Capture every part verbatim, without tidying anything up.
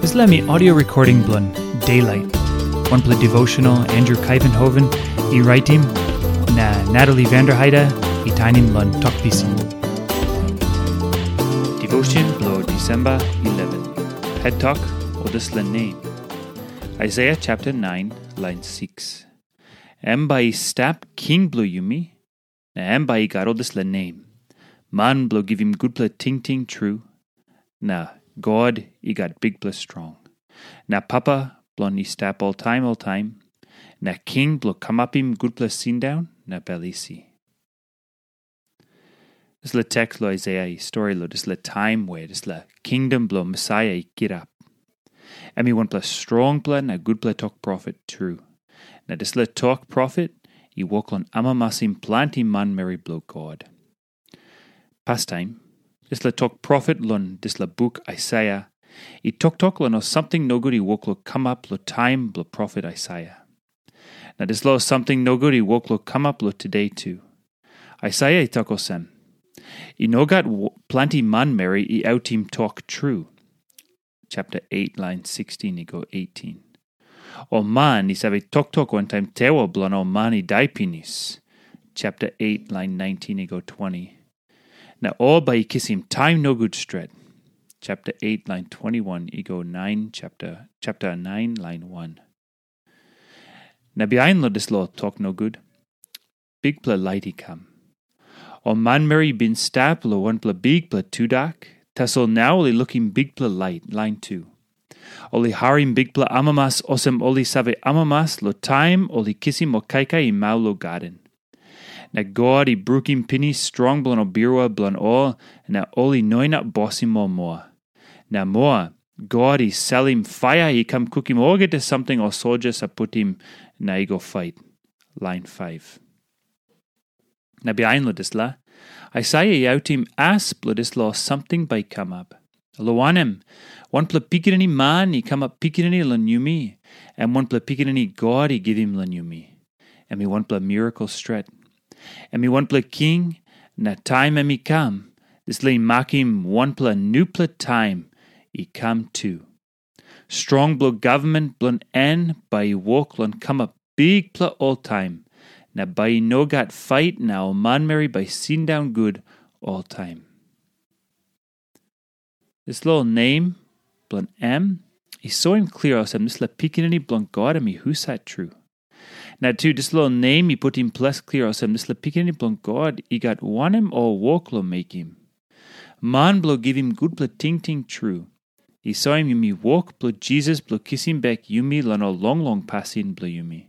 Dispela mi audio recording bilong Daylight. Wanpela devotional Andrew Kaivenhoven i raitim, na Natalie Vanderheide i tainim long Tok Pisin. Devotion bilong Disemba eleven. Het tok o dispela nem. Isaiah chapter nine, line six. Em bai i stap king bilong yumi, na em bai i gat ol dispela nem. Man bilong givim gutpela tingting tru, na God i gat bikpela strong. Na papa bilong i stap oltaim oltaim, na king bilong kamapim gutpela sindaun na bel isi. Dispela teks long Isaiah i stori long dispela taim we dispela kingdom bilong Mesaia i kirap. Em i wanpela strongpela na gutpela tok profet tru. Na dispela tok profet i wok long amamasim planti manmeri bilong God. Pastaim, dispela tok profet long dispela buk Aisaia i toktok long ol samting nogut i wok long kamap long taim bilong profet Aisaia. Na dispela ol samting nogut i wok long kamap long tude tu. Aisaia i tok olsem, "I no gat planti manmeri i autim tok tru." Chapter eight, line sixteen i go eighteen. O man i save toktok wantaim tewa bilong ol man i dai pinis. Chapter eight, line nineteen i go twenty. Na ol bai i kisim taim nogut stret. Chapter eight, line twenty-one i go nine, chapter, chapter nine, line one. Na bihain long dispela tok nogut, bikpela lait i kam. Ol manmeri i bin stap long wanpela bikpela tudak, tasol nau ol i lukim bikpela lait, lain tu. Ol i harim bikpela amamas olsem ol i save amamas long taim ol i kisim ol kaikai i mau long gaden. Na God i brukim pinis strong bilong ol birua bilong ol, na ol i no inap bosim ol moa. Na moa, God i salim paia i kam kukim olgeta samting ol soldia sa putim na i go fait. Lain faiv. Na bihain long dispela, Aisaia i autim as bilong dispela samting bai i kamap. Long wanem, wanpela pikinini man i kamap pikinini long yumi, em wanpela pikinini God i givim long yumi. Em i wanpela mirakel stret. Em i wanpela king, na taim em i kam, dispela i makim wanpela nupela taim i kam tu. Strong bilong gavman bilong en bai i wok long kamap bikpela oltaim, na bai i no gat fait na ol manmeri bai i sindaun gut oltaim. Dispela ol nem bilong em i soim klia olsem dispela pikinini bilong God em i husat tru. Na tu dispela ol nem i putim ples klia olsem dispela pikinini bilong God i gat wanem ol wok long mekim. Man bilong givim gutpela tingting tru i soim yumi wok bilong Jisas bilong kisim bek yumi long ol longlong pasin bilong yumi.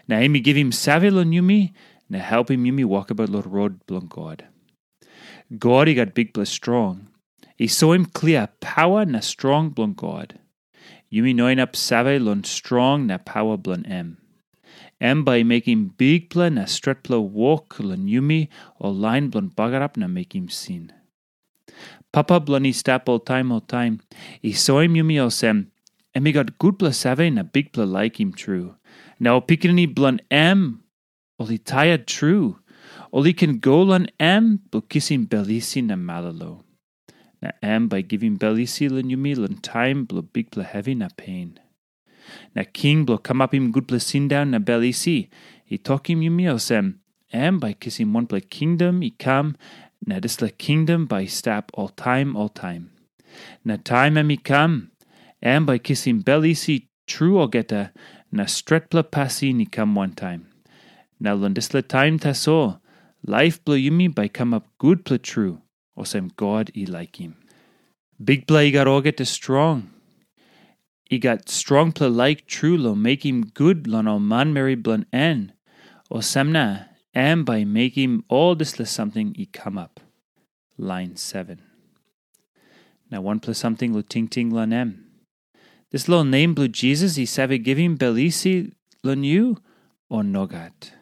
Na em i givim save long yumi na helpim yumi wokabaut long rot bilong God. God i gat bikpela strong. I soim klia pawa na strong bilong God. Yumi no inap save long strong na pawa bilong em. Em bai i mekim bikpela na stretpela wok long yumi ol lain bilong bagarap na mekim sin. Papa bilong i stap oltaim oltaim i soim yumi olsem, em i gat gutpela save na bikpela laikim tru. Na ol pikinini bilong em, ol i tiet tru. Ol i ken go long em bilong kisim bel isi na malolo. Na em bai i givim bel isi long yumi long taim bilong bikpela hevi na pen. Na king bilong kamapim gutpela sindaun na bel isi i tokim yumi olsem, em bai i kisim wanpela kingdom i kam, na dispela kingdom bai i stap oltaim oltaim. Na taim em i kam, em bai i kisim bel isi tru olgeta, na stretpela pasin i kam wantaim. Na long dispela taim tasol, laip bilong yumi bai i kamap gutpela tru, olsem God i laikim. Bikpela i gat olgeta strong. I gat strongpela laik tru long mekim gut long ol manmeri bilong en, olsem na em bai i mekim ol dispela samting i kamap. Lain seven. Na wanpela samting long tingting long em. Dispela nem bilong Jisas i save givim bel isi long yu, o nogat?